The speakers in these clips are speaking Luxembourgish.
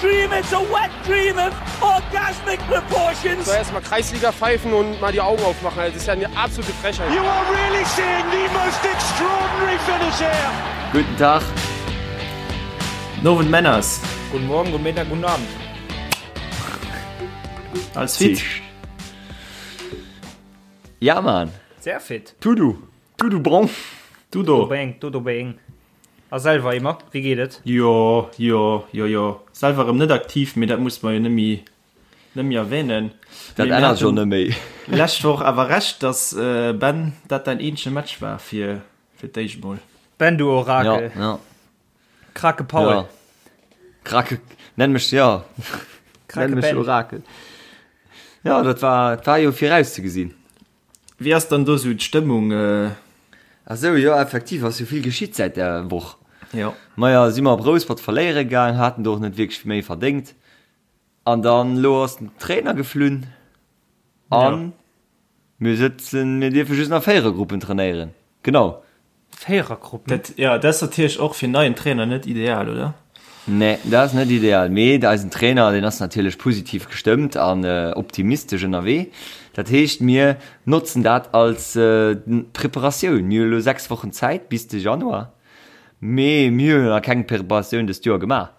dream, it's a wet dream of orgasmic proportions. So erstmal Kreisliga pfeifen und mal die Augen aufmachen. Das ist ja eine absolute Frechheit. You are really seeing the most extraordinary finish here. Guten Tag. Nowend Männers. Guten Morgen, guten Mittag, guten Abend. Alles fit? Ja, Mann. Sehr fit. Tudu. Tudu bon. Tudo. Bang, Tudo bang. A selwer immer, wéi geet et? Jo, jo, jo, jo. Selwer erëm net aktiv, mee dat muss mer jo net méi, net méi erwähnen. Dat ännert jo net méi. Lescht Woch awer Recht, dass, Ben, dat däin eenzege Match war fir, fir d'éischt mol. Ben, du Orakel. Ja, ja. Krake Paul. Ja. Krake, nenn mech, ja. Krake Nenn mech Ben. Orakel. Ja, dat war, dat war jo virauszegesinn. Wéi ass dann do sou d'Stëmmung? Ah sou, jo effektiv ass jo vill geschitt säit där Woch. Jo. Maja, si mer op Rouspert verléiere gaang, haten do och net wierklech méi verdéngt. An dann elo ass den Trainer geflunn an mir sëtzen, mir dierfe just nach Véierergruppen trainéieren. Genau. Véierergruppen? Dat, jo, dat ass natierlech och fir en neien Trainer net ideal, oder? Nee, dat ass net ideal. Mee eisen Trainer, deen ass natierlech positiv gestëmmt an optimistesch ënnerwee. Dat heescht, mir notzen dat als Preparatioun. Mir hu elo 6 Wochen Zäit bis de Januar, mee mir hunn nach keng Preparatioun dëst Joer gemaach.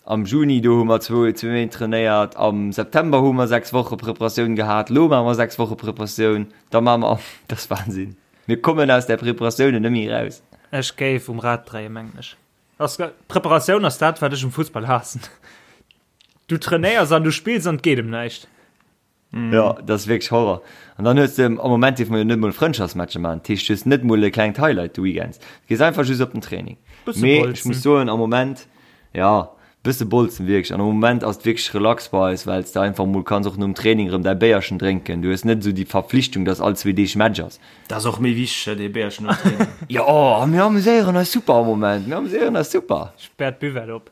Am Juni, do hu mer zwou Méint trainéiert, am September hu mer 6 Woche Preparatioun gehat, elo maache mer 6 Woche Preparatioun, da maache mer, dat ass Wahnsinn. Mir kommen aus där Preparatioun net méi eraus. Ech géif um Rad dréien, mengen ech. Ass, Preparatioun ass dat, wat ech um Fussball haassen. Du trainéiers an du spills an et geet ëm näischt. Jo, dat ass wierklech Horror. An dann hues de, am Moment dierfe mer jo net mol Frëndschaftsmatcher maachen, dat heescht, du hues net mol e klengt Highlight de Weekends. Du gees einfach just op den Training. Bësse Mee ech bolzen. muss soen, am Moment, jo, bësse bolzen wierklech. An am Moment ass et wierklech relax bei eis, well s de einfach mol kanns och nom Training erëm däi Béierchen drénken. Du hues net esou déi Verpflichtung, dass all zwee Deeg Match ass. Dat ass och méi wichteg, dee Béierchen nom Training. Jo, a mir amuséieren eis super am Moment. Mir amuséieren eis super. Späert d'Buvette op.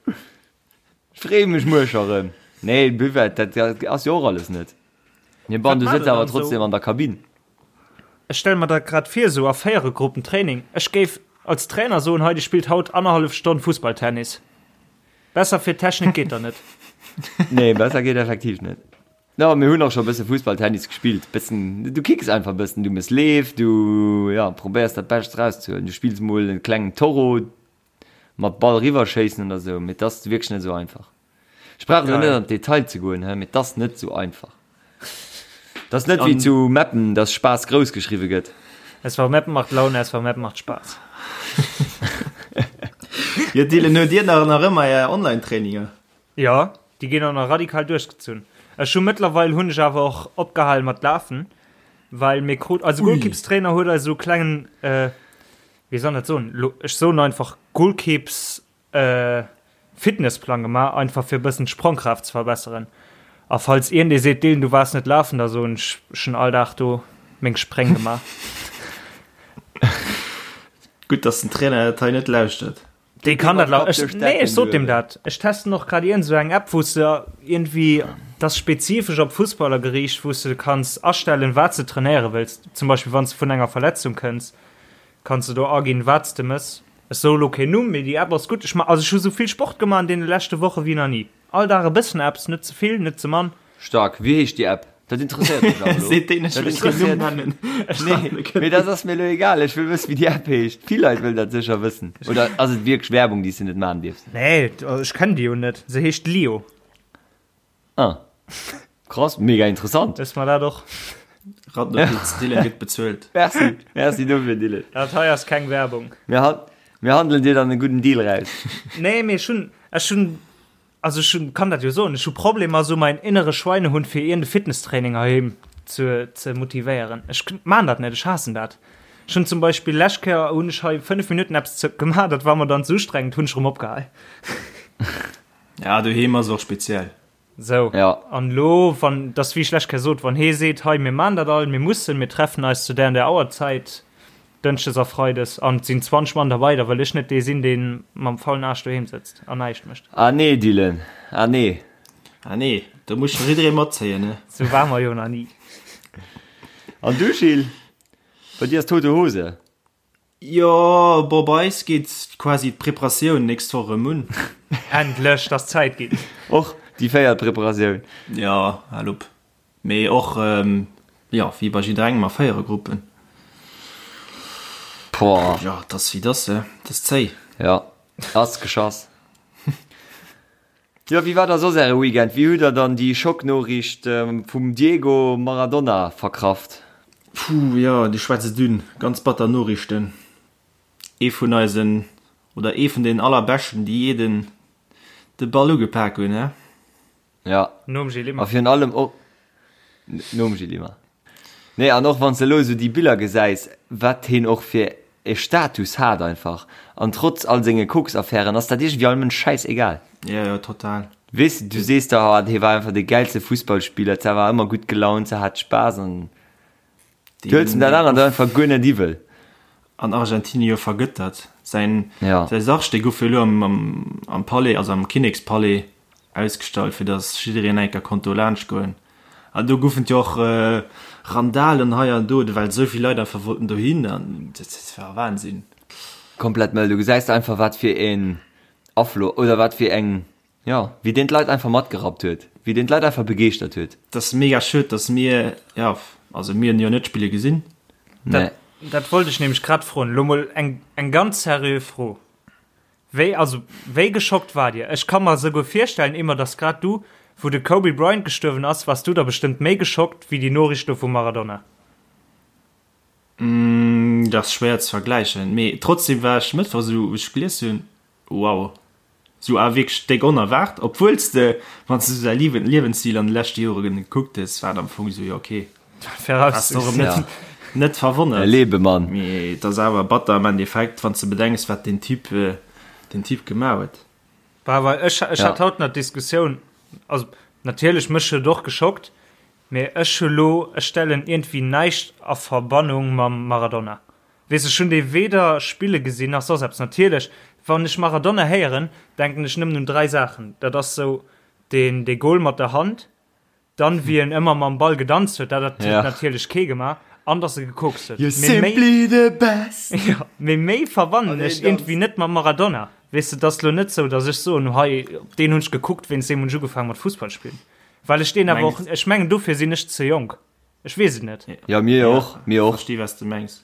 Freeë mech muer scho rëm. Nee, Buvette, dat ass jo och alles net. Mee bon, du sëtz awer trotzdem an der Kabinn. Ech stelle mer dat grad vir, esou a Véierergruppen Training. Ech géif als Trainer soen, hei, dir spillt haut annerhallef Stonn Fussballtennis. Besser fir d'Technik geet der net. Nee, besser geet effektiv net. Jo, mir hunn och scho e bësse Fussballtennis gespillt. Bëssen, du kicks einfach e bëssen, du mëss Leef, du, jo, probéiers dat Bescht erauszehuelen. Du spills mol e klengen Toro, mat Ball riwwer schéissen oder sou, mee 't ass wierklech net sou einfach. Ech brauch elo net an d'Detail ze goen, mee 't ass net sou einfach. 't ass net wéi zu Meppen, dass Spaass grouss geschriwwe gëtt. SV Meppen macht Laune, SV Meppen macht Spaß. Jo Dylan, huet Dir nach nach ëmmer Är Online-Traininger? Jo, déi ginn och nach radikal duerchgezunn. Ech hu mëttlerweil hunn ech awer och opgehal mat lafen, well mir krut, eise Golkippstrainer huet eis esou klengen, wéi soll dat soen, lo ech soen einfach Golkeeps Fitnessplang gemaach, einfach fir e bëssen d'Sprongkraaft ze verbesseren. A falls iergendee seet, Dylan du waars net lafen, da soen ech, ech hunn all Dag do meng Spréng gemaach. Gutt, dass den Trainer dat hei net lauschtert. Dee kann dat lau ech, nee, ech sot deem dat. Ech testen och grad iergend esou eng App, wou s de iergendwéi, dat ass spezifesch op Fussballer geriicht, wou s de kanns astellen, wat s de trainéiere wëlls. Zum Beispill wann s de vun enger Verletzung kënns, kanns de do aginn, wat s de mëss. Ech soe lo keen Numm, mee déi App ass gutt. Ech ma, also ech hu sou vill Sport gemaach an deene leschte Woche wéi nach ni. All Dag e bëssen eppes, net ze vill, net ze mann. Stark. Wéi heescht déi App? Dat interesséiert mech awer elo. Seet deen, ech Dat wëll keen Numm interesséiert nennen. Ech Nee, mee dat ass mir elo egal. Ech wëll wëssen, wéi déi App heescht. Vill Leit wëllen dat sécher wëssen. Oder ass et wierklech Werbung, déi s de net maachen dierfs? Nee, ech kennen déi jo net. Se heescht Lio. Ah. Krass, mega interessant. Wësse mer dat och. Randnotiz, Dylan gëtt bezuelt. Merci, merci dofir, Dylan. Dat hei ass keng Werbung. Mir, han mir handelen dir dann e gudden Deal raus. Nee, mee ech hunn, ech hunn, also ech hunn, kann dat jo soen, ech hu Problemer esou mäin innere Schweinehund fir iergend e Fitnesstraining heiheem ze, ze motivéieren. Ech maan dat net, ech haassen dat. Ech hunn zum Beispill lescht Kéier hunn ech hei 5 Minutten eppes ze gemaach, dat war mer dann ze ustrengend, hunn ech erëm opgehal. Ja, doheem ass och speziell. Sou, Ja. an elo, wann, dass wéi ech lech Kéier sot, wann hee seet, hei mir maan dat all, mir mussen, mir treffen eis zu där an där Auerzäit, Dënschdes a Freides, an et sinn 20 Mann derbei, da wëll ech net dee sinn, dee mam faulen Aarsch doheem sëtzt an näischt mécht. Ah nee, Dylan, ah nee. Ah nee, do muss scho jidderee matzéien, ne? Sou war mer jo nach ni. An du, Gilles? Bei dir ass tote Hose. Jo, bon, bei eis geet quasi d'Preparatioun nächst Woch erëm un. Endlech, dass Zäit ginn. Och déi véiert Preparatioun. Jo, hal op. Mee och, jo, wéi bei jidderengem a Véierergruppen. Boah. Jo, et ass wéi et ass, et ass zéi. Jo, ass geschass. Jo, wéi war da soss äre Weekend? Wéi hutt der dann déi Schocknoriicht vum Diego Maradona verkraft? Puh, jo, du schwätz et un. Ganz batter Noriichten. Ee vun eisen, oder ee vun den allerbeschten, déi jee den de Ball ugepak hunn, he? Ja. Nom Gilles Immer. A virun allem och nom Gilles Immer. Nee, an och wann s de elo esou déi Biller gesäis, wat heen och fir e Status hat einfach. An trotz all senge Koksaffären ass dat iergendwéi all Mënsch schäissegal. Ja, ja, total. Weess de, du sees der, oh, hee war einfach de gäilste Fussballspiller, se war ëmmer gutt gelaunt, se hat Spaass an Du huels em dat anert einfach guer net iwwel. An Argentinien jo vergëttert. Säin Ja. säi Sarg, dee gouf jo elo am, am, am Palais, also am Kinnekspalais ausgestallt, fir datt jiddereen eng Kéier konnt do laanscht goen. An do goufen et jo och Randalen hei an do, well esou vill Leit einfach wollten dohin an dat war Wahnsinn. Komplett mëll. Du gesäis einfach wat fir een Aflo oder wat fir eng Jo, wéi deen d'Leit einfach matgerappt huet, wéi deen d'Leit einfach begeeschtert huet. Et ass mega schued, dass mir, jo, also mir hunn jo net spille gesinn. Nee. Dat, dat wollt ech nämlech grad froen. Lo mol eng, eng ganz seriö Fro. Wéi, also, wéi geschockt waart Dir? Ech ka mer souguer virstellen, Emma, dass grad du, wou de Kobe Bryant gestuerwen ass, waars du da bestëmmt méi geschockt wéi déi Noriicht do vum Maradona. Dat ass schwéier ze vergläichen, mee trotzdem war ech Mëttwoch esou, wou ech gelies hunn, wow, Sou awer wierklech déck onerwaart, obwuels de, wann s de sou säi Liewensstil an de leschte Jore gekuckt hues, war et am Fong sou, jo ok, ass och erëm net, net verwonnert. E Lebemann. Mee et ass awer batter am Endeffekt, wann s de bedenks, wat deen Typ, deen Typ gemaach huet. Bah, well ech, ech hat haut nach d'Diskussioun, also natierlech, mech huet et och geschockt, mee ech hu lo, ech stellen iergendwéi näischt a Verbannung mam Maradona. Weess, ech hunn dee weder spille gesinn nach soss eppes. Natierlech, wann ech Maradona héieren, denken ech nëmmen un 3 Saachen. Dat ass sou deen dee Goal mat der Hand, dann wéi en ëmmer mam Ball gedanzt huet, dat huet Ja. natierlech kee gemaach, an dass e gekokst huet. You're Mee méi, simply the best. jo, mee méi verbannen An deen ech iergendwéi Danz. net mam Maradona. Weess de, et ass lo net sou, dass ech soen, hei op deen hunn ech gekuckt, wéinst deem hunn ech ugefaangen mat Fussball spillen. Well ech deen awer och, Mengs. ech mengen dofir sinn ech ze jonk. Ech weess et net. Ja, mir jo och, mir och. Versti was du mengs.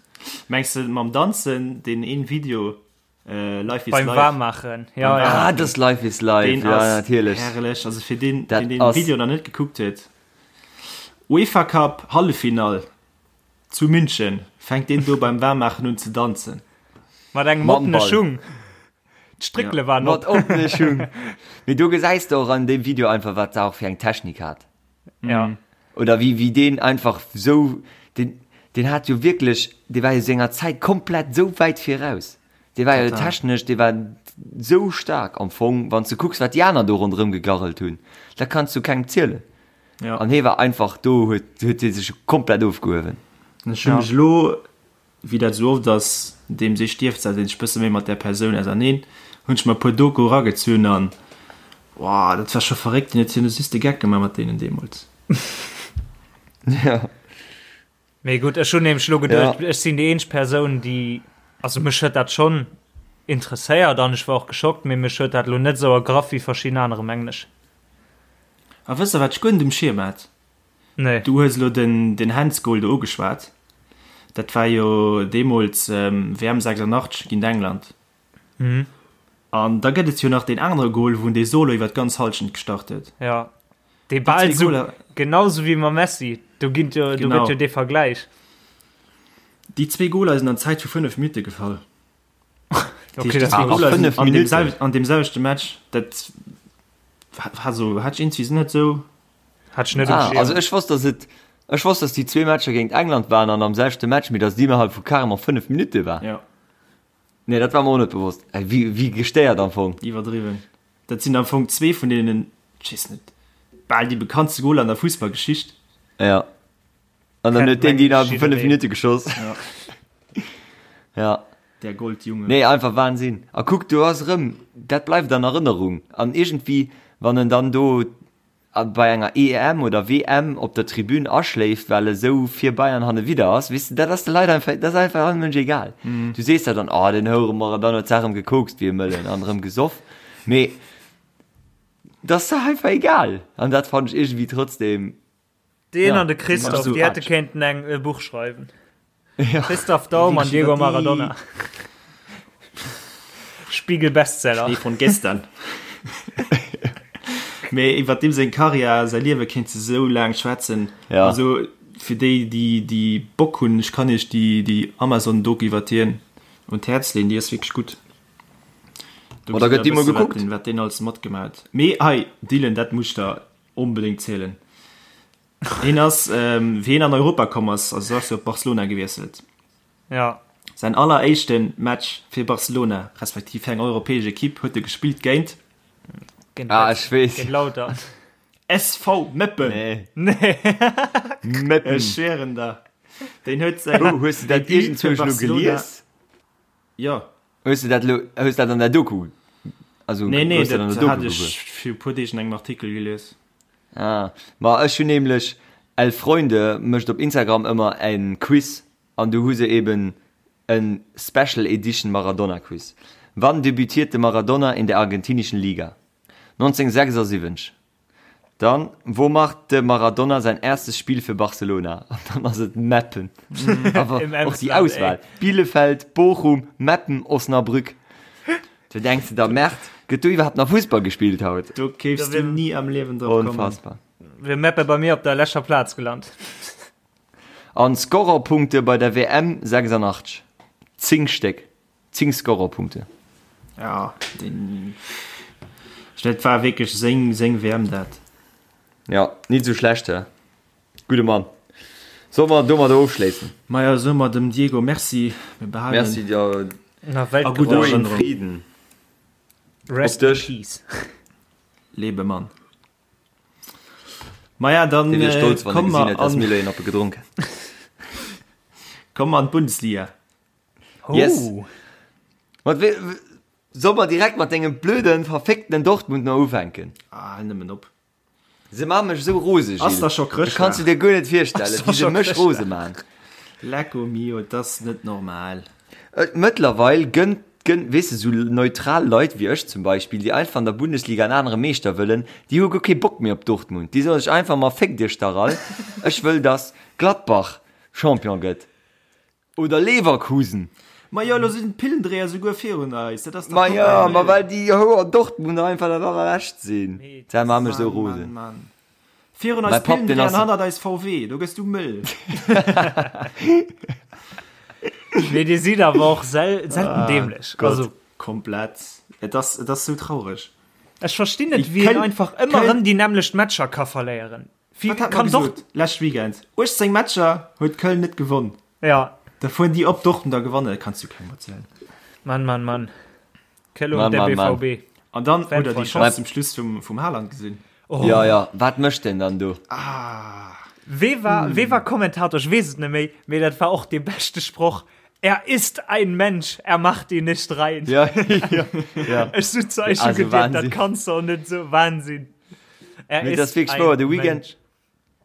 Mengs de mam Danzen, deen een Video Life is Beim Life? Waarmaachen, ja, ja. Ah, das Life is Life, Deen ja, ass natierlech. herrlech. Also fir deen, Dat deen den ass- Video nach net gekuckt huet. UEFA Cup Halleffinall zu München, fänkt deen do beim Waarmaachen un ze danzen. Mat engem Mam oppene Ball. Schung. D'Stréckele waren Mat op. oppene Schung. Mee do gesäis de och an deem Video einfach, wat se och fir eng Technik hat. Ja. Oder wéi, wéi deen einfach sou, deen, deen hat jo wierklech, dee war jo senger Zäit komplett sou wäit viraus. Dee war jo technesch, dee war sou staark am Fong, wann s de kucks, wat déi aner do ronderëm gegarrelt hunn, dat kanns du kengem zielen. Ja. An hee war einfach do, huet, huet hie sech komplett ofgehuewen. Ech hu mech elo Wéi dat esou oft ass, deems ee stierft, setzt een sech bësse méi mat där Persoun auserneen. Hunn ech mer e puer Doku eragezunn an wow, dat war scho verréckt. Deen huet jo just de Geck gemaach mat deenen deemools. Ja. Mee gutt, ech hunn nämlech elo geduecht, Ja. ech sinn déi eenzeg Persoun, déi, also mech huet dat schonn interesséiert an ech war och geschockt, mee mech huet dat elo net esou ergraff wéi verschidden anere, mengen ech. A wësst der, wat ech guer net um Schierm hat? Nee. Du hues elo den, den Handsgoal do ugeschwat. Dat war jo deemools WM 86 géint England. Mhm. An da gëtt et jo nach deen anere Goal, wou en dee Solo iwwer d'ganz Hallschent gestart huet. Ja. Dee bal sou, genau sou wéi mam Messi. Do ginn jo, do gëtt jo dee Vergläich. Déi zwee Goaler sinn an Zäit vu 5 Minutte gefall. Okay, das Ah, war a 5 an dem, Minutten. an dem selwechte Match, dat war so, hat ich irgendwie net sou. Hat ich net um Ah, Schirm. also ech wosst, dass et, ech wosst, dass déi zwee Matcher géint England waren an am selwechte Match, mee dass déi innerhalb vu carrément 5 Minutte war. Ja. Nee, dat war mer och net bewosst. Ey, wéi, wéi gestéiert am Fong. Iwwerdriwwen. Dat sinn am Fong zwee vun deenen, ech weess net, bal déi bekanntste Goler an der Fussballgeschicht. Ja. An dann Kennt huet deen déi innerhalb vu 5 jiddereen. Minutte geschoss. Ja. Ja. Der Goldjunge. Nee, einfach Wahnsinn. A kuck, do ass erëm, dat bleift an Erënnerung. An iergendwéi, wann en dann do bei enger EM oder WM op der Tribün aschléift, well e sou fir Bayern hannewidder ass, weess de, dat ass de Leit einfach, dat ass einfach allem Mënsch egal. Du sees der dann, oh, den Houere Maradona huet d'Saach erëm gekokst wéi e Mëllen an erëm gesoff. Mee. Dat ass der einfach egal. An dat fannen ech iergendwéi trotzdem. Deen an de Christoph, déi hätte kéinten eng e Buch schreiwen. Ja. Christoph Daum an Diego Maradona. Spiegel Bestseller. Schnee von gestern. Mee iwwer deem seng Karriär, säi Liewe kéints de sou laang schwätzen. Ja. Also fir déi, déi, déi Bock hunn, ech kann iech déi, déi Amazon-Doku iwwer hien un d'Häerz leeën, déi ass wierklech gutt. Do da gëtt déi mol gekuckt. Wat deen alles matgemaach huet. Mee hei, Dylan, dat muss ech der onbedéngt zielen. Hien ass, wéi hien an Europa komm ass, also ass jo op Barcelona gewiesselt. Ja. Säin alleréischte Match fir Barcelona, respektiv fir eng europäesch Ekipp, huet e gespillt géint. Géint ah, ech weess. Géint Lautern. SV Meppen. Nee. Nee. Meppen. Ech schwéieren der. Deen huet säin. Oh, hues du dat iergendzwousch elo gelies? Jo. Hues du dat elo, hues dat an der Doku? Also, Nee, nee, hues du dat an dat der hat Doku ech gewuer? fir e puer Deeg an engem Artikel gelies. Ah, ma ech hunn nämlech, El Freunde mécht op Instagram ëmmer en Quiz an do hu se eben en Special Edition Maradona Quiz. Wann debütierte Maradona in der argentinischen Liga? 1976. Dann, Wo macht de Maradona sein erstes Spiel für Barcelona? An dann ass et Meppen. Awer Im och déi Emsland, Auswahl, Bielefeld, Bochum, Meppen, Osnabrück. Du denks de der, Merd, gëtt do iwwerhaapt nach Fussball gespillt haut? Do kéifs du ni am Liewen drop kommen. Unfassbar. Wier Meppe bei mir op der leschter Plaz gelant. An Scorerpunkte bei der WM 86, 10 Stéck. 10 Scorerpunkte. Ja, den, dat war wierklech seng, seng WM dat. Ja, nit sou schlecht, hä? Gudde Mann. Solle mer domadder ofschléissen? Maja, soe mer dem Diego Merci. Mir behalen Merci dir. Na, a gudder Ruhe in Erënnerung. Frieden. Rest Op in dech. peace. Lebe Mann. Maja, dann Dee wier stolz, wann e komm gesinn mer hätt, dass an, mir elo een oppe gedronk hätten. komm mer an d'Bundesliga. Yes. Oh. Mat we soll mer direkt mat dengem blöden, verfickten Dortmund no ufänken? Ah, hal nëmmen op. Se maache mech esou rose, Ass Gilles. da scho Dat Chrëschtdag? kanns du dir guer net virstellen, Ass da wéi se scho mech rose Chrëschtdag? maachen. Lecco mio, et ass net normal. Et mëttlerweil gënnt, gënnt, weess de, sou neutral Leit wéi ech zum Beispill, déi einfach an der Bundesliga en anere Meeschter wëllen, déi hu guer kee Bock méi op Dortmund. Déi soe sech einfach, ma féckt iech dach all, ech wëll, dass Gladbach Champion gëtt. Oder Leverkusen. Ma jo, elo sinn d'Pillendréier souguer virun eis, dat ass dach Ma jo, komplett ma mëll. well déi Houer Dortmunder einfach dat allerlescht sinn. Dat maacht mech esou Mann, rosen. Mann, Mann. Virun eis Mäi Papp, deen Pillendréier ass. an hannert eis VW, do gëss du mëll. Mee dir sidd awer och sel selten dämlech. Gott. Also, Komplett. Et ass, et ass sou traureg. ech verstinn net, Déi wéi een Köln- einfach ëmmer Köln- erëm déi nämmlecht Matcher ka verléieren. Wie Wat hat mer kann gesot Dort lescht Weekend? 18 Matcher huet Köln net gewonn. Ja. Da fueren déi op Dortmund a gewannen, dat kanns du kengem erzielen. Mann, Mann, Mann. Köln und Mann, der Mann, Mann. BVB. An dann hutt der déi Fanfreund. Chance zum Schluss vum, vum Haaland gesinn. Oh. Ja, ja, wat mécht deen dann do? Ah. Wee war, wee war Kommentator? Ech weess et net méi, mee dat war och dee beschte Sproch. Er ist ein Mensch, er macht ihn nicht rein. Ja, ja, ja. Ech sot zu eis, Also schon gedacht, dat Wahnsinn. kanns du och net soen. Wahnsinn. Er Mee dat ass wierklech wouer, de Weekend, Mensch.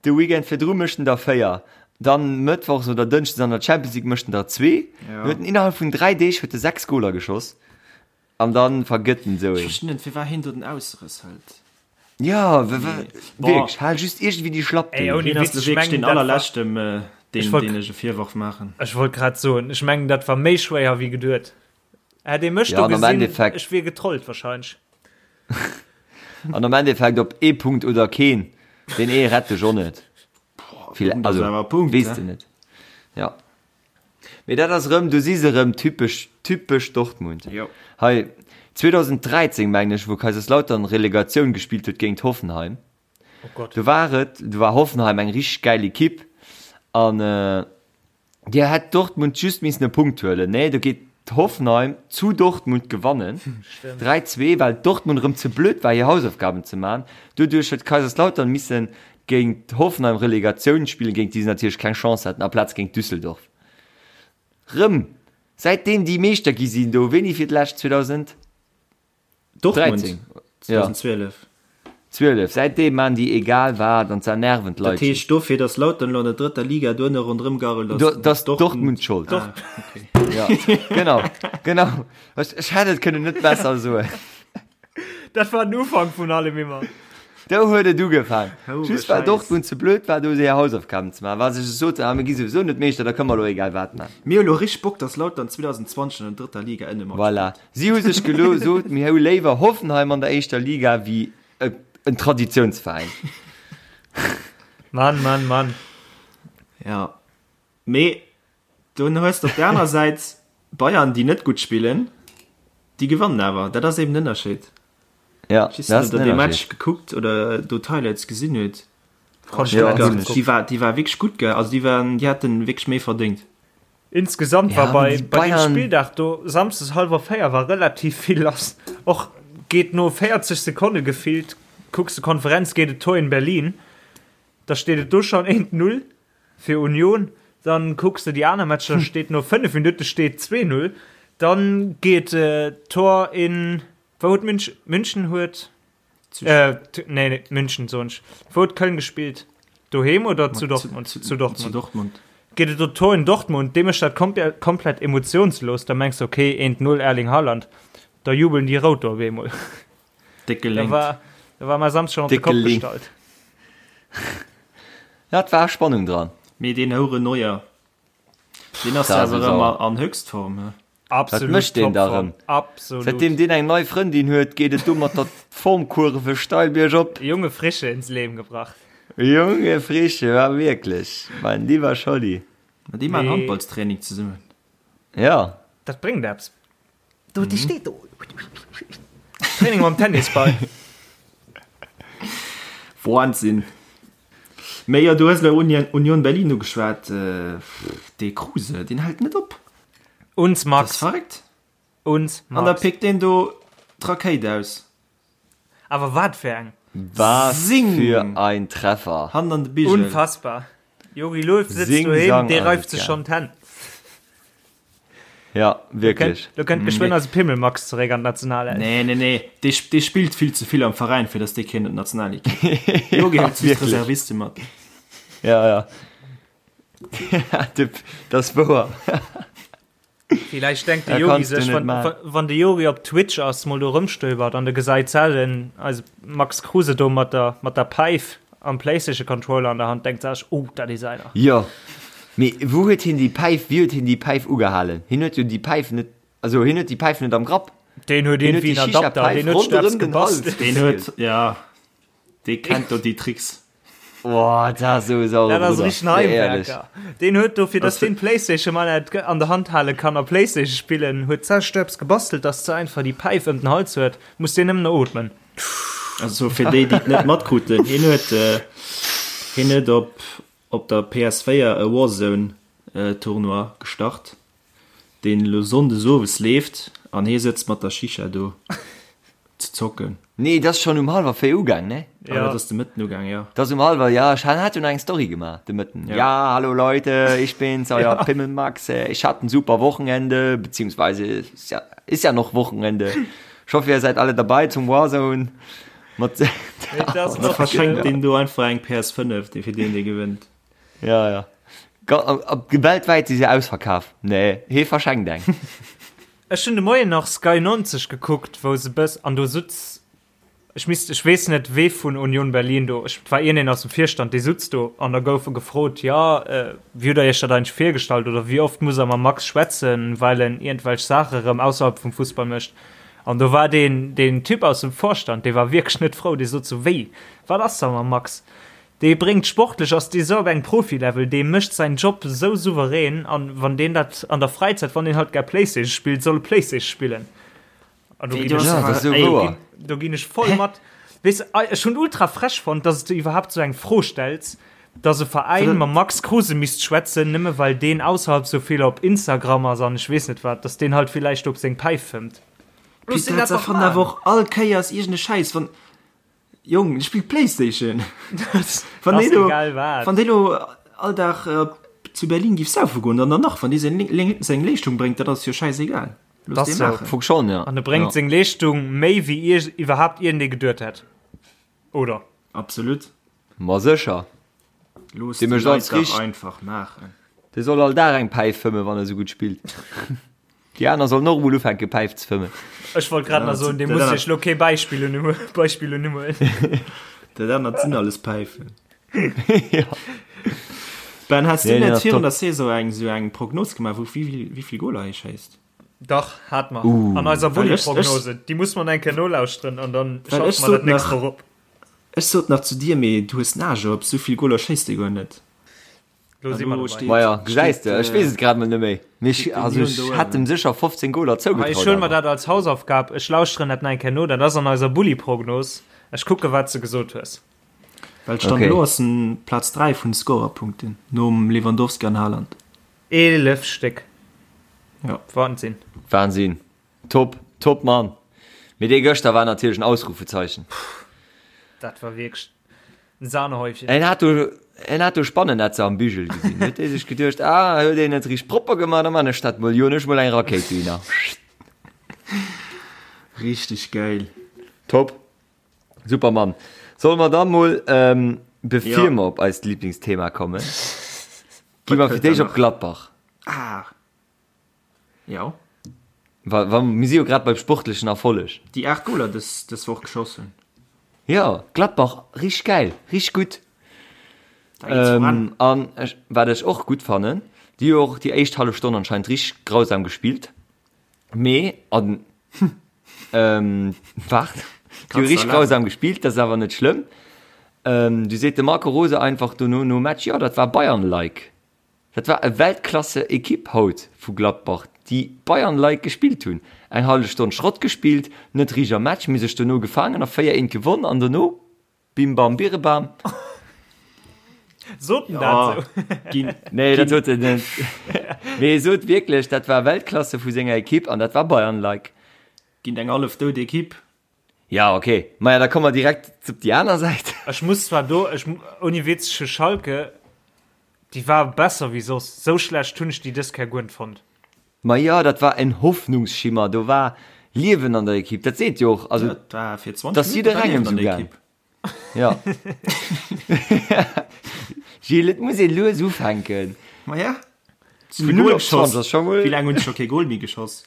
de Weekend virdru mécht en der 4, dann mëttwochs oder dënschdes an der Champions League mécht en der 2. Ja. Huet en innerhalb vun 3 Deeg huet e 6 Goler geschoss an dann vergëtt en esou Ech een. verstinn net, firwat hien do den Ausrëss hëlt. Ja, w- w- Nee. Boah. wierklech, hal just iergendwéi déi Schlapp Ey, do. ouni Hien ass Witz, lo ech wierklech mengen, deen dat war- allerleschten, äh, Ech deen, wollt- deen ech e Virworf maachen. Ech wollt grad soen, ech mengen, dat war méi schwéier wéi geduet. Hätt ee mech Ja, do an am gesinn, Endeffekt- ech wier getrollt wahrscheinlech. An am Endeffekt op ee Punkt oder keen, deen ee rett dech och net. Vill, Punkt ass also, awer Punkt, weess ne? de net. Ja. Mee dat ass erëm, du si se erëm, typesch, typesch Dortmund. Jo. Hei, 2013, mengen ech, wou Kaiserslautern Relegatioun gespillt huet géint Hoffenheim. Oh Gott. Do war et, do war Hoffenheim eng richteg gäil Ekipp an Dir hätt Dortmund just missen e Punkt huelen. Nee, do geet Hoffenheim zu Dortmund gewannen. 3, 2, well Dortmund erëm ze blöd war hir Hausaufgaben ze man. Doduerch huet Kaiserslautern missen géint Hoffenheim Relegatioun spillen, géint déi se natierlech keng Chance haten, aplaz géint Düsseldorf. Rëm säitdeem déi Meeschter gi sinn do, wéini fir d'lescht? 2000? Dortmund 13. Ja. 2012. 12. Säitdeem maan déi egal wat an z'ernerven Dat d'Leit heescht just. dofir, datt Lautern elo an der drëtter Liga duerno ronderëm garrelt ass, Do, dass Dortmund schold. Ah, okay. Ja, genau, genau. Ech, ech hätt et kënnen net besser soen. Dat war den Ufank vun allem immer. Do huet et ugefaang. Houre Just well Scheiss. Dortmund ze blöd war, do hir Hausaufgaben ze maachen, well se sech soten, ah, mir gi souwisou net Meeschter, da kënne mer elo egal wat maachen. Mir hu lo richteg Bock, dass Lautern 2020 an der drëtter Liga ënne matspillt. Voilà. Si hu sech gelo sot, mir hu léiwer Hoffenheim an der éischter Liga wéi en Traditiounsveräin. Mann, Mann, Mann. Ja. Mee dunn hues de op der anerer Säit Bayern, déi net gutt spillen, déi gewannen awer. Dat ass eben den Ënnerscheed. Ja, Ich dat ass weiß nicht, den ob der dee Match Ënnerscheed. gekuckt oder do d'Highlights gesinn huet. Konnt Ja, net ganz hunn ech. Déi war, déi war wierklech gutt, gell? Also déi waren, déi hätten wierklech méi verdéngt. Insgesamt Ja, war aber bei, déi bei dem Bayern- Spilldag do samsdes hallwer 4 war relativ vill lass. Och geet no 40 Sekonne gefillt, kucks de Konferenz, geet et Tor in Berlin. Da steet et do schon 1-0 fir Union. Dann kucks de déi aner Matcher, steet no 5 Minutte steet 2-0. Dann geet äh, Tor in wou huet Münch, München huet äh, nee, nee, München soen ech. Wou huet Köln gespielt? Doheem oder zu Dortmund? Zu, Zu Dortmund. Zu Dortmund. Geet et do Tor in Dortmund, dee mécht dat komple komplett emotionslos. Da mengs de okay 1-0 Erling Haaland. Da jubeln déi Rout do op eemol. Déck Da geléngt. war, da war mä Samsd schon op de Déck Kopp geléngt. gestallt. Ja, et war Spannung dran. Mee deen Houere Neuer, deen ass Da jo ass awer e erëm sauer. an Höchstform, he? Wat Absolut mécht deen da Topform. erëm? Absolut. Säitdeem deen eng nei Frëndin huet, geet et do mat der Formkurve steil biergop. Junge Frische ins Leben gebracht. Junge Frische, war wierklech, mein lieber Scholli. Ma déi maachen Mee- Handballstraining zesummen. Ja. Dat bréngt eppes. Do, déi steet do. Training mam Tennisball. Wahnsinn. Mee jo, du hues elo Union, Union Berlin ugeschwat. Dee Kruse, deen hält net op. Uns Dat Max. ass verréckt. Uns An da Max. pickt deen do d'Rakéit aus. Awer wat fir eng. Was Sing! für ein Treffer. Hand an de Bigel. Unfassbar. Jogi Löw sitzt Sing, doheem, sang, dee reift asozial. sech schonn d'Hänn. Ja, wierklech. Do kënnt geschwënn eise Pimmel-Max zeréck an d'Nationalelf. Nee, nee, nee. Dee, dee spillt vill ze vill am Veräin, fir datt dee kéint an d'Nationalekipp. Jogi hëlt just d'Reserviste mat. Ja, ja. Dat ass wouer. Villäicht denkt de Da Jogi kanns du sech, net wann, maachen. wann de Jogi op Twitch ass, mol do rëmstöbert an de gesäit sellen eise Max Kruse do mat der, mat der Päif am Playstation Controller an der Hand, denkt sech, oh, dat is einer. Jo, mee wou huet hien déi Päif, wéi huet hien déi Päif ugehalen? Hien huet jo déi Päif net, also hien huet déi Päif net am Grapp. Deen huet Hien huet iergendwéi déi en Adapter, Shisha-Päif deen huet sech eppes ronderëm den Hals gebastelt. Deen huet, ja, dee kennt do déi Tricks. Boah, dat ass esou e saure Dat ass Brudder, richtegen nee, ehrlech. Heimwerker. Deen huet dofir, dass deen d'Playstation mal net an der Hand hale kann a Playstation spillen, huet sech eppes gebastelt, dass ze einfach déi Päif ëm den Hals huet, muss deen nëmmen ootmen. Also fir déi, déi et net matkruten, hien huet, hien huet op, op der PS4 e Warzone Tournoi gestart, deen elo Sonndes owes leeft an hie sëtzt mat der Shisha do ze zocken. Nee, dat ass schonn um hallwer 4 ugaang, ne? Ah, dat ass de Mëtten ugaang, jo. Dat ass um hallwer, ja, ech hat jo nach eng Story gemaach de Mëtten. Ja. Ja, hallo Leute, ich bin's, euer Pimmelmax, ich hatte ein super Wochenende, beziehungsweise ist ja, ist ja noch Wochenende. Ich hoffe, ihr seid alle dabei zum Warzone. Mat Da verschenkt deen do einfach eng PS5, dee fir deen, dee gewënnt. Ja, ja. Weltwäit si se ausverkaf. Nee, hee verschenkt eng. Ech hunn de Moien nach Sky 90 gekuckt, wou se bëss an do sutz, ech misst, ech weess net wee vun Union Berlin do, ech, et war iergendeen aus dem Virstand, dee sutz do an da gouf e gefrot, jo, wéi hutt der iech dat eigentlech virgestallt oder wéi oft muss der mam Max schwätzen, well en iergendwelch Saache rëm ausserhalb vum Fussball mécht. An do war deen, deen Typ aus dem Vorstand, dee war wierklech net frou, dee sot sou, wéi, wat ass da mam Max? Dee bréngt sportlech, ass dee sou op engem Profilevel, dee mécht säin Job sou souverän an wann deen dat an der Fräizäit, wann deen halt gär Playstation spillt, soll e Playstation spillen. An do ginn ech, Ja, dat ass sou do wouer. ginn, do ginn ech voll mat. Weess, ech hunn ultra frech fonnt, dass s de iwwerhaapt sou eng Fro stells, dass e Veräin mam Max Kruse misst schwätzen, nëmme well deen ausserhalb sou vill op Instagram ass an ech weess net wat, dass deen halt villäicht op seng Päif fëmmt. Looss deen dat dach maachen. Awer och all Kéiers iergend e Schäiss, wann, Jong, ech spillt Playstation. Wann dee lo, wann dee lo all Dag zu Berlin giff saufe goen, dann dann nach, wann dee seng, seng Leeschtung bréngt, dat ass jo schäisegal. Looss dee maachen. Funk schon, ja. An e bréngt seng Leeschtung méi wéi ier iwwerhaapt iergendee geduet hätt, oder? Absolut. Ma sécher. Looss Dee déi mécht alles Leit dach richteg. einfach maachen. Dee soll all Dag eng Päif fëmmen, wann e sou gutt spillt. Déi aner sollen och emol ufänke Päif ze fëmmen. Ech wollt grad nach soen, dee muss sech lo kee Beispill un Beispill unhuelen. Dat anert sinn alles Päifen. Ja. Ben, has du net virun der Saison eng sou eng Prognos gemaach, wou wéi vill Goler hie schéisst? Dach, hat mer. An eiser Bulli-Prognose. Déi muss mer eng Kéier nolauschteren an dann schalte mer dat nächst Woch op. Ech sot nach zu dir, mee du hues Nage op, sou vill Goler schéisst dee guer net. Lo si mer dobäi. Maja, gesäis de, ech weess et grad mol net méi. Mee ech, also ech hätt em sécher 15 Goler zougetraut. Ech huele mer dat als Hausaufgab, ech lauschteren dat nach eng Kéier no. Dat ass an eiser Bulli-Prognos. Ech kucke wat s de gesot hues. Well Stand elo ass en Plaz 3 vun de Scorerpunkten, nom Lewandowski an Haaland. 11 Stéck. Ja. Wahnsinn. Wahnsinn. Top, top Mann. Mee dee gëschter war natierlech en Ausrufezeichen. Dat war wierklech en Sahnehäufchen. En hat do, en hat do Spannennetzer am Bügel gesinn. Huet dee sech geduecht, ah, huet een net richteg propper gemaach, da man ech dat mol, joen ech mol eng Rakéit dohinner. Richteg geil. Top. Super Mann. Solle mer da mol, ähm, bevir ja. mer op eist Lieblingsthema kommen, gi mer fir d'éischt op Gladbach. Ah. Ja. Wa, wa, mir si jo grad beim sportlechen Erfolleg. Déi 8 Goler dës, dës Woch geschoss hunn. Ja, Gladbach, richteg geil, richteg gutt. Ähm, an ech, wat ech och gutt fannen, déi hu och déi éischt hallef Stonn anscheinend richteg grausam gespillt. Mee an ähm, waart, déi hu richteg grausam gespillt, dat ass awer net schlëmm. Ähm, du seet de Marco Rose einfach dono nom Match, jo, dat war Bayern-like. Dat war e Weltklasse-Ekipp haut vu Gladbach, déi Bayern-like gespillt hunn. Eng hallef Stonn Schrott gespillt, net richteg am Match, mee sech dono gefaangen a 4, 1 gewonn an dono bim bam birebam. Sot en dat sou? Nee, dat sot en net. Mee e sot wierklech, dat war Weltklasse vu senger Ekipp an dat war Bayern-like. Géint eng hallef dout Ekipp. Ja, ok. Maja, da komme mer direkt op déi aner Säit. Ech muss zwar do, ech, ouni Witz, ech hu Schalke, déi war besser wéi soss. Sou schlecht hunn ech déi dës Kéier guer net fonnt. Ma jo, dat war en Hoffnungsschimmer, do war Liewen an der Ekipp. Dat seet jo och, also, Dat war fir 20 dass Minutten war jidderengem Liewen an sou der gaang. Ekipp. Ja. Gilles, et muss ee lues ufänken. Ma ja. Vun 0 op 20 ass scho mol. Wéi laang hunn se scho kee Goal méi geschoss?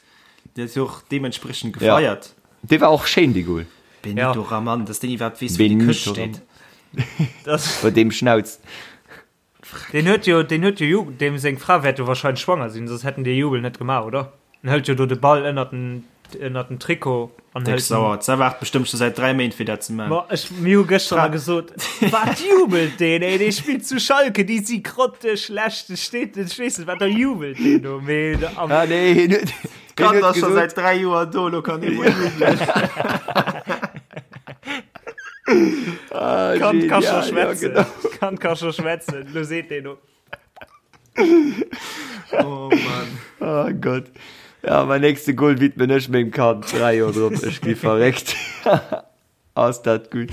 Dee ass jo och deementspriechend gefeiert. Ja. Dee war och schéin, dee Goal. Benito ja. Raman, dass deen iwwerhaapt weess, wou déi Këscht steet. Bei deem Schnauz. Deen huet jo, deen huet jo Jubel, deem seng Fra wäert jo wahrscheinlech schwanger sinn, soss hätten déi Jubel net gemaach, oder? En hëlt jo do de Ball ënnert den, ënnert den Trikot an hëlt. Déck sauer, d'Sa waart bestëmmt scho säit 3 Méint fir dat ze man. Ma ech, mir hu gëschter nach gesot, wat jubelt deen, ey, dee spillt zu Schalke, déi si grotteschlecht, e steet, ech weess net, wat da jubelt deen do, mee am. Ah nee, hien huet, hien D'Kand huet ass scho gesot. säit 3 Joer do, lo kann hie mol jubelen. Ah, Kand ka scho genial, ja, schwätzen. genau. Kand ka scho schwätzen, lo seet deen do. Oh Mann. Oh Gott. Ja, mein nächste Goal widmen ech mengem Kand. 3 Joer drop, ech gi verréckt. Ass dat gutt.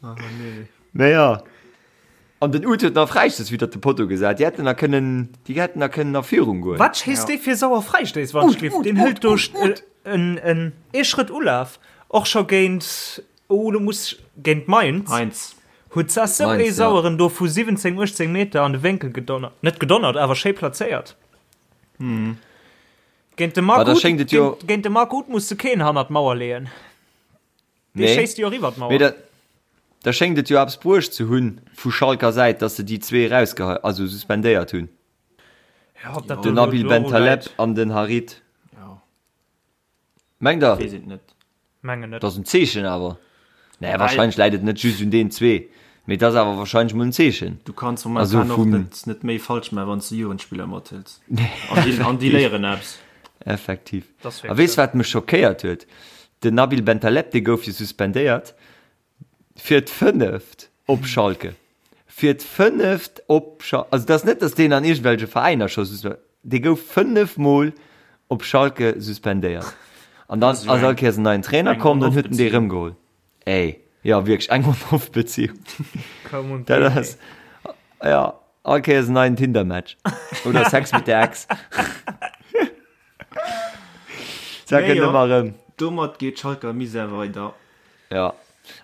Oh nee. Naja. An den Uth huet nach Fräistöss widder de Potto gesat. Déi hätten nach kënnen, déi hätten nach kënnen a Führung goen. Wat schéisst dee fir sauer Fräistéiss, wann ech Uth, giff? Uth, Deen hëlt Uth, do Uth, Uth. en, en, ee Schrëtt Ulaf, och scho géint, oh, lo muss ech, géint Mainz. Mainz. Huet se sou Mainz, ee ja. saueren do vu 17, 18 Meter an de Wénkel gedonnert. Net gedonnert, awer schéi plazéiert. Géint de Ma Marc da Uth, schéngt et jo. géint, géint de Marc Uth muss de keen hannert d'Mauer leeën. Dee Nee. schéisst jo och iwwer d'Mauer. Mee da, da schéngt et jo eppes bruecht ze hunn vu Schalker Säit, dass se déi zwee erausgehe, also suspendéiert hunn. Ja, ob dat Den do Nabil elo Bentaleb läit, an den Harit. Ja. Mengt der? Weess et net. mengen net. Dat ass en Zeechen awer. Naja, wahrscheinlech läit et net just un deenen zwee, mee et ass awer wahrscheinlech mol en Zeechen. Du kanns Also momentan och vum. net, net méi falsch maachen, wann s de Jugendspiller mathëls. An déi, an déi léieren eppes. Effektiv. Dat ass A wierklech weess sou. wat mech schockéiert huet? Den Nabil Bentaleb, dee gouf jo suspendéiert fir d'fënneft op Schalke. Fir d'fënneft op Schalke. Also et ass net, datt deen an iergendwelche Veräiner scho suspe, dee gouf 5 Mol op Schalke suspendéiert. An dann ass all Kéiers en neien Trainer komm, dann huet en dee rëmgeholl. Ey, jo wierklech eng On-Off-Beziehung. Come on, Dat ass, ja, all Kéiers en neien Tinder-Match. Oder Sex mit der Ex. Dat Mee kënnt jo, ëmmer erëm. domat geet Schalke am Misär weider. Ja.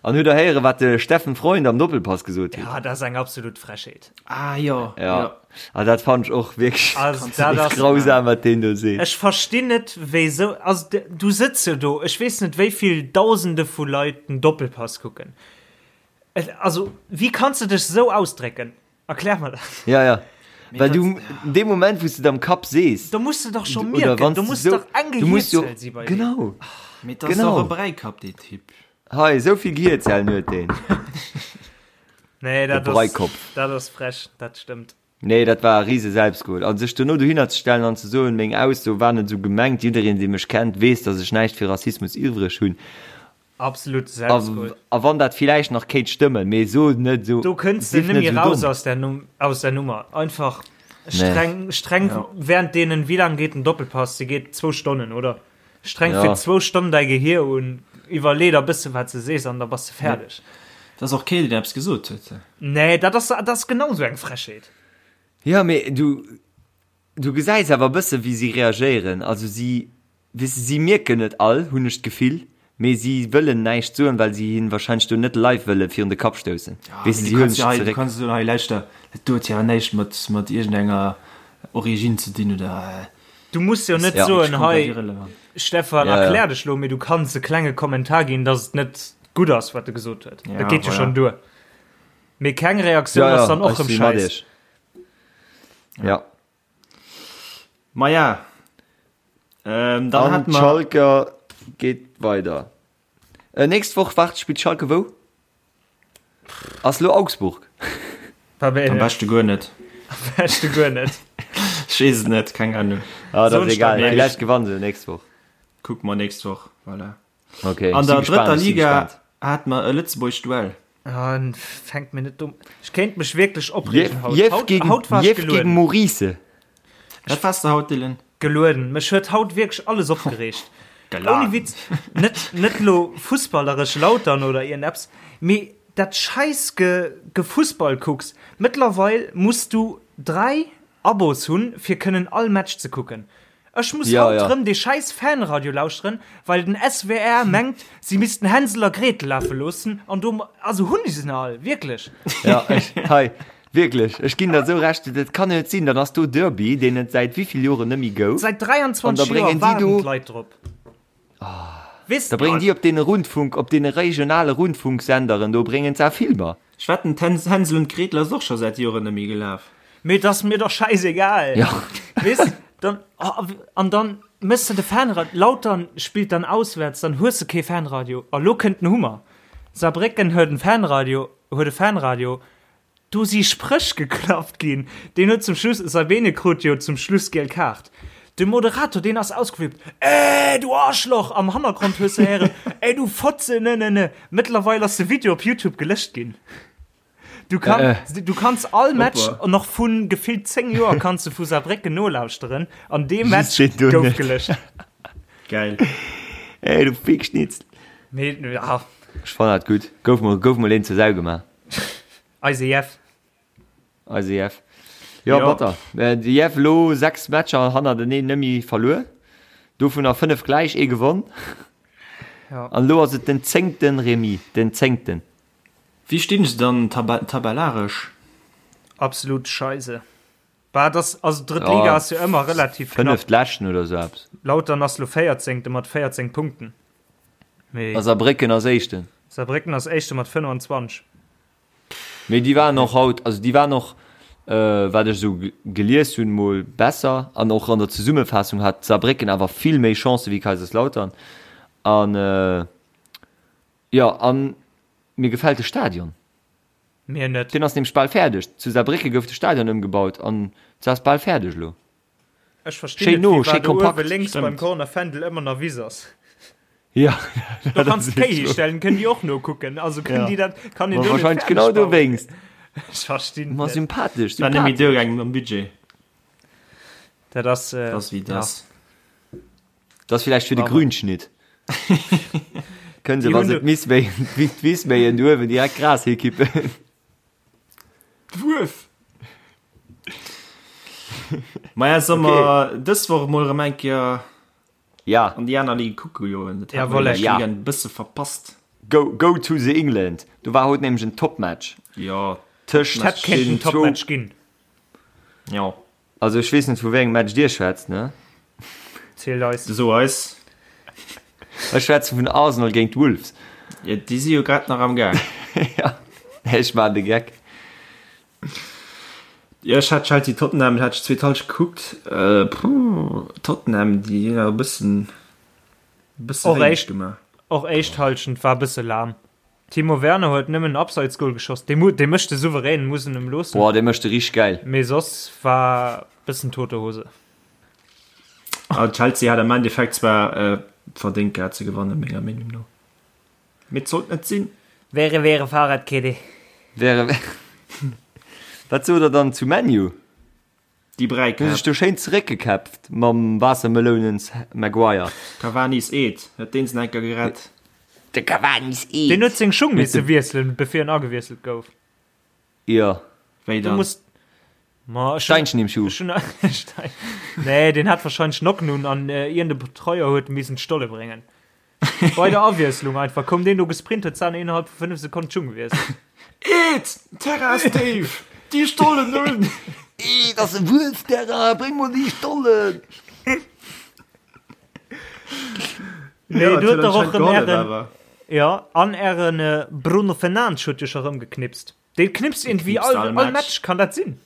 An hutt der héieren, wat de Steffen Freund am Doppelpass gesot huet? Ja, dat ass eng absolut Frechheet. Ah jo, Ja. jo. Ah, dat fand ech och wierklech Also, dat ass, grausam, wat deen do seet. Ech verstinn net, wéisou, also du sëtz jo do, ech weess net, wéi vill Dausende vu Leit den Doppelpass kucken. Also, wéi kanns de dech esou ausdrécken? Erklär mer dat. Ja, ja. Well du, in dem Moment, wou s de et am Kapp sees. Do muss de dach scho mierken, do muss dach eng Gehierzell si bei dir. Genau. Mee dat ass och e Bräikapp, dee Typ. Hei, esou vill Gehierzellen huet deen. Nee, dat ass, dat ass frech, dat stëmmt. Nee, dat war e rise Selbstgol. A sech dono dohinner ze stellen an ze soen, meng Ausso war net esou gemengt, jiddereen, dee mech kennt, weess, datt ech näischt fir Rassismus iwwreg hunn. Absolut Selbstgol. A wann dat villäicht nach kéint stëmmen, mee so net esou. Do kënns de net méi raus aus der, aus der Nummer. Einfach streng, streng ja. während deenen, wéi laang geet den Doppelpass? Se geet zwou Stonnen, oder? Streng ja. fir zwou Stonnen däi Gehier un, iwwerlee der bësse wat se sees an da bass de fäerdeg. Dat ass och keen, deen eppes gesot huet. Nee, dat ass, dat ass genau sou eng Frechheet. Ja, mee du, du gesäis awer e bësse wéi si reagéieren. Also si Weess de, si mierken et all, hunn ech d'Gefill, mee si wëllen näischt soen, well si hien wahrscheinlech do net live wëlle virun de Kapp stoussen. Weess de, si huelen sech zeréck. Du kanns soen, hei lauschter, dat do huet jo awer näischt mat, mat iergendenger Origine ze dinn oder. Du muss jo net soen, hei Stefan, erklär dech lo, mee du kanns e klenge Kommentar ginn, dass et net gutt ass, wat e gesot huet. Dat geet jo schonn duer. Mee keng Reaktioun ass dann och erëm scheiss. Ja. Maja, ähm, dann hat man Schalke geht weider. Äh, nächst Woch waart spielt Schalke wou? Ass lo Augsburg. Am beschte guer net. Am beschte guer net. Ech weess et net, keng Ahnung. Ah, dat ass egal. Vielleicht gewannen se nächst Woch. Kucke mer nächst Woch, voilà. Okay, An der drëtter Liga hat mer e Lëtzebuerg Duell. Ah, fänkt mir net dumm. Ech kéint mech wierklech opreegen haut. Jeff haut, gegen, haut war Jeff gegen Maurice. Wat wars de haut, Dylan? Gelueden. Mech huet haut wierklech alles opgereegt. Ouni Witz, net, net lo fussballeresch Lautern oder iergendepps, mee dat scheiss Ge Gefussball kucks. Mëttlerweil muss du 3 Abos hunn, fir kënnen all Match ze kucken. Ech muss ja, haut ja. rëm dee scheiß Fanradio lauschteren, well den SWR mengt, si missten Hänsel a Gretel lafe loossen an do also hunn ech se all wierklech. Ja, ech, hei, wierklech, ech ginn der sou recht, dat kann net sinn, dann ass do Derby, deen et säit wéivill Joren net méi gouf. Säit 23 Joer waarden d'Leit drop. Weess Da bréngen déi op deene Rundfunk, op deene regionale Rundfunksenderen do bréngen se Filmer. Ech wetten, d'Hänsel und Gretel ass och scho säit Joren net méi gelaf. Mee et ass mir doch scheißegal. Ja. Weess, dann, oh, an dann mëss de de Fanradio, Lautern spillt dann auswärts, dann hues de kee Fanradio. A lo kënnt den Hummer. Saarbrécken huet en Fanradio, huet e Fanradio, Do si Spréch geklappt ginn. Deen huet zum Schluss, Sabine krut jo zum Schluss giel Kaart. De Moderator, deen ass ausgeflippt, Ey, du Arschloch! Am Hannergrond hues de héieren, Ey, du Fotze, ne, ne, ne. Mëttlerweil ass de Video op YouTube gelécht ginn. Du kann, du kanns all Match nach vu gefillt 10 Joer kanns de vu Saarbrécken nolauschteren an dee Match gouf gelécht. Geil. Ey, du Fickschnitzel. Mee, ja. Ech fannen dat gutt. Gouf mol, gouf mol een zur Sau gemaach. Eise Jeff. Eise Jeff. Jo, jo. batter. Äh, de Jeff lo 6 Matcher hannerteneen nëmmi verluer. Dovunner 5 gläich, ee gewonn. Ja. An lo ass et den zéngten Remis, den zéngten. Wéi stinn se dann tabellaresch? Absolut scheise. Bah, das, also drëtt Liga ja, ass jo ëmmer relativ knapp. Fënneft Leschten oder sou eppes. Lautern ass lo 14. mat 14 Punkten. Mee. A Saarbrécken ass Éischten. Saarbrécken ass Éischte mat 25. Mee déi waren och haut, also déi waren och, wat ech esou gelies hunn, mol besser. An och an der Zesummefaassung hat Saarbrécken awer vill méi Chancë wéi Kaiserslautern. An jo, an mir gefält de Stadion. Mir net. Deen ass nämlech bal fäerdeg. Zu Saarbrécke gouf de Stadion ëmgebaut an se ass bal fäerdeg elo. Ech verstinn Schéin net, no, wéi schéi war do uewe kompakt. lénks beim Stemmt. Corner Fändel ëmmer nach Wiss ass. Ja, Do dat kanns ass de Kéi wierklech histellen, kënnen déi och nokucken. Also kënnen Ja. déi dat, kann een Ma do net wahrscheinlech fäerdeg genau bauen. dowéinst. Ech verstinn Ma et net. sympathesch, War net méi sympathesch. duergaangen mam Budget. Dat ass, äh, Dat ass wéi et ja. ass. Dat ass villäicht fir de Awer. Grünschnitt. Kënnen se, Déi wa hunn se do. d'Miss méien, d'Wiss méien, do uewen direkt Gras hikippen. D'Wuef! Maja, solle mer dës Woch emol erëm eng Kéier Ja. an déi aner Ligue kucke goen? Dat hat mer Jawolle. déi lescht Ja. Weekend e bësse verpasst. Go, go to the England. Do war haut nämlech en Topmatch. Jo, Tëscht Hätt kéinten den zwou. Topmatch ginn. Jo. Also ech weess net vu wéi engem Match dir schwätzt, ne? Zielt eis. So eis. Ech schwätze vun Arsenal géint Wolves. Jo, déi si jo grad nach am Gaang. Ja, ech maachen de Geck. Jo, ech hat Chelsea Tottenham hat ech zweet Halschent gekuckt. Puh, Tottenham, déi hunn awer e bëssen, e bësse Och wéineg éischt, gemaach. och éischt Halschent war e bësse lahm. Timo Werner huet nëmmen en Abseitsgoal geschoss, dee mu, dee mécht de souverän, muss en em loossen. Boah, dee mécht de richteg gäil. Mee soss war bëssen tote Hose. A Chelsea hat am Endeffekt zwar verdéngt gehat ze gewannen, menger Meenung no. Mee et sollt net sinn. Wäre wäre Fahrradkette. Wäre wäre. Wat sot der dann zu ManU? Déi Hu sech Bräikäpp. do schéin zeréckgekäpft mam Waassermelounens Maguire. Cavani's Eed huet deen se enker gerett. De Cavani's Eed. Deen huet seng Schung Huet misse de. wiesselen, bevir en agewiesselt gouf. Jo. Wéi Du dann? muss Ma ech hunn Steinchen im Schuh. ech hunn Stein Nee, deen hat wahrscheinlech Nocken un an iergend e Betreuer huet missen d'Stolle bréngen. Bei der Awiesslung einfach koum deen do gesprint, huet d'Sahne innerhalb vu 5 Sekonnen d'Schung gewiesselt. Eed! Terrain ass déif! Déi Stollen un! Eed ass e Wuelfterrain, bréng mol déi Stollen! Nee, Ja, du et huet huet dach och anscheinend rëm gehollef ären awer. Ja, an ären Bruno Fernandes huet jo scho rëm geknipst. Dee knipst Dee iergendwéi knipst all all all Match. Match, kann dat sinn?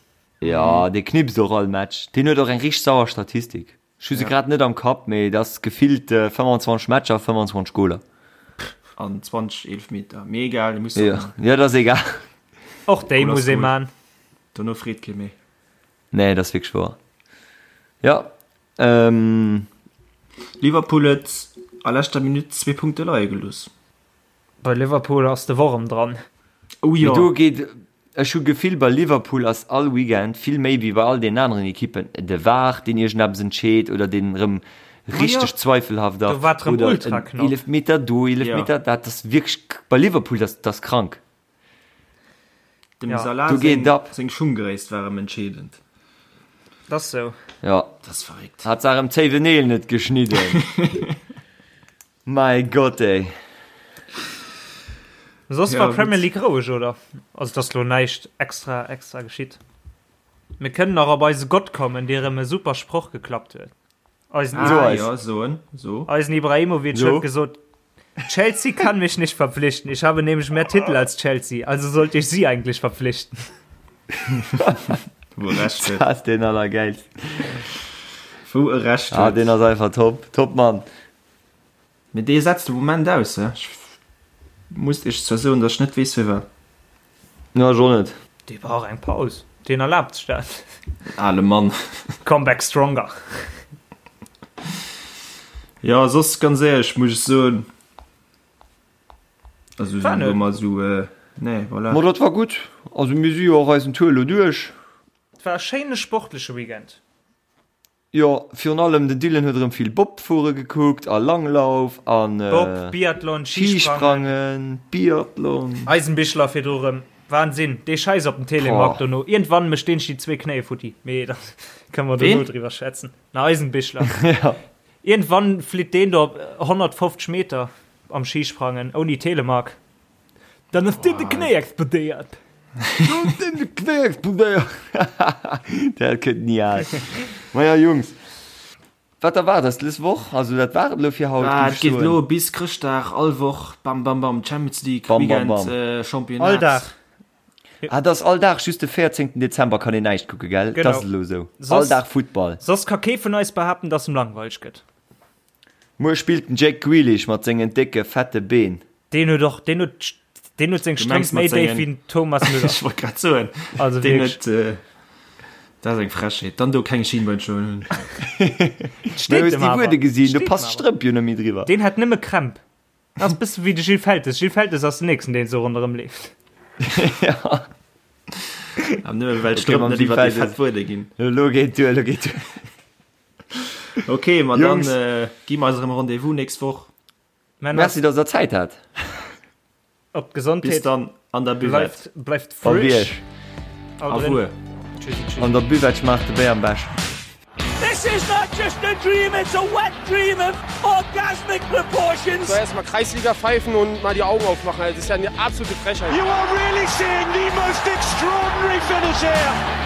Ja, dee knipst och all Match. Deen huet och eng richteg sauer Statistik. Ech hu se Ja. grad net am Kapp, mee et ass gefillt 25 Matcher, 25 Goler. An 20 Eelefmeter. Mee egal, dee muss der Ja, man. ja, dat ass egal. Och déi Goal ass muss ee Goal. man. Dono freet kee méi. Nee, dat ass wierklech wouer. Ja, ähm. Liverpool huet a leschter Minutt zwee Punkte leie gelooss. Bei Liverpool ass de Worm dran. Oh Mee jo. do geet, ech hu Gefill bei Liverpool ass all Weekend vill méi wéi bei all deenen aneren Ekippen de VAR deen iergendeppes entscheet oder deen erëm richteg zweifelhaft Do ass war et rëm oder ultra en knapp. Eelefmeter do, Ja. Eelefmeter dat ass wierklech bei Liverpool dat ass krank. Dem Ja. Salah Do geet seng, et ab. seng Schunggréisst war erëm entscheedend. Dat ass sou. Ja. Dat ass verréckt. Hat se erëm d'Zéiweneel net geschnidden. Mäi Gott ey. Soss Ja, war Premier gutt. League roueg, oder? Also et ass lo näischt extra extra geschitt. Mir kënnen nach op eise Gott kommen, dee rëm e super Sproch geklappt huet. Eisen, Ah, So eis. ja, soen, so. eisen Ibrahimovic So. huet gesot, Chelsea kann mich nicht verpflichten. Ich habe nämlich mehr Titel als Chelsea, also sollte ich sie eigentlich verpflichten. Wou e Recht huet. Dat ass deen allergäilsten. Wou e Recht Ah, huet. deen ass einfach top. Top Mann. Mee dee setzt de Moment aus, he? Ech muss iech zwar soen, datt ech net weess firwat. Jo, ech och net. Dee brauch eng Paus. Deen erlaabt sech dat. Ale Mann. Come back stronger. Jo, soss ganz éierlech muss ech soen, also War sou net. ëmmer sou, nee, voilà. Ma dat war gutt. Also mir si jo och eisen Tour elo duerch. Et war e schéine sportleche Weekend. Jo, virun allem den Dylan huet erëm vill Bobfuere gekuckt a Langlauf an Bob, Biathlon, Schisprangen. Schisprangen, Biathlon. Eisenbichler virdru rëm. Wahnsinn, dee Schäiss op dem Telemark Boah. dono. Iergendwann mécht deen sech déi zwee Knéie futti. Mee da kënne mer dono Ween? driwwer schwätzen. Na, Eisenbichler. Ja. Iergendwann flitt deen do op 150 Meter am Schisprangen ouni Telemark. Dann ass dir de Knéi explodéiert. Dann de Knéi explodéiert. Dat gëtt ni al. Maja Jungs, wat erwaart eis dës Woch? Also dat war et elo fir haut, Ah, géif et ech geet soen. elo bis Chrëschtdag, all Woch, bam, bam, bam, Champions League, Bam, bam, Weekend, bam. äh, Championnat. All Dag. Ah, dat ass all Dag, just de 14. Dezember kann een näischt kucke, gell? Genau. Dat ass elo esou. All Soss- Dag Futtball. Soss ka kee vun eis behaapten, dass em langweileg gëtt. Muer spillt den Jack Grealish mat sengen décke, fette Been. Deen huet och, deen huet, deen huet seng Du mengs Strëmp méi mat déif sengen- wéi den Thomas Müller. Ech wollt grad soen, Also deen wierklech. huet, äh, dat ass eng Frechheet. Dann do keng Schienbeinschoner hunn. Steet Hues dem déi awer. Wuede gesinn, do Steet passt dem awer. d'Strëmp jo net méi driwwer. Deen hat nëmme Krämp. Dat ass bësse wéi de Gilles Feltes. Gilles Feltes ass den nächsten, deen esou ronderëm leeft. Ja. Awer nëmme well Okay, d'Strëmp mam net Gilles iwwer déi Feltes. fett Wuede ginn. Elo geet duer, elo geet duer. Okay, ma dann Jungs. äh, gi mer eis erëm Rendez-vous nächst Woch. Männer, Merci, dass der Zäit hat. op Bis d'Gesondheet. dann an der Buvette. Bleift, bleift Op frisch. Iech. Haut Au drin. revoir. Tschüssi, tschüssi. An der Buvette schmaacht de Béier am beschten. This is. is not just a dream, it's a wet dream of orgasmic proportions. So erstmal Kreisliga pfeifen und mal die Augen aufmachen. Das ist ja eine absolute Frechheit. You are really seeing the most extraordinary finish here.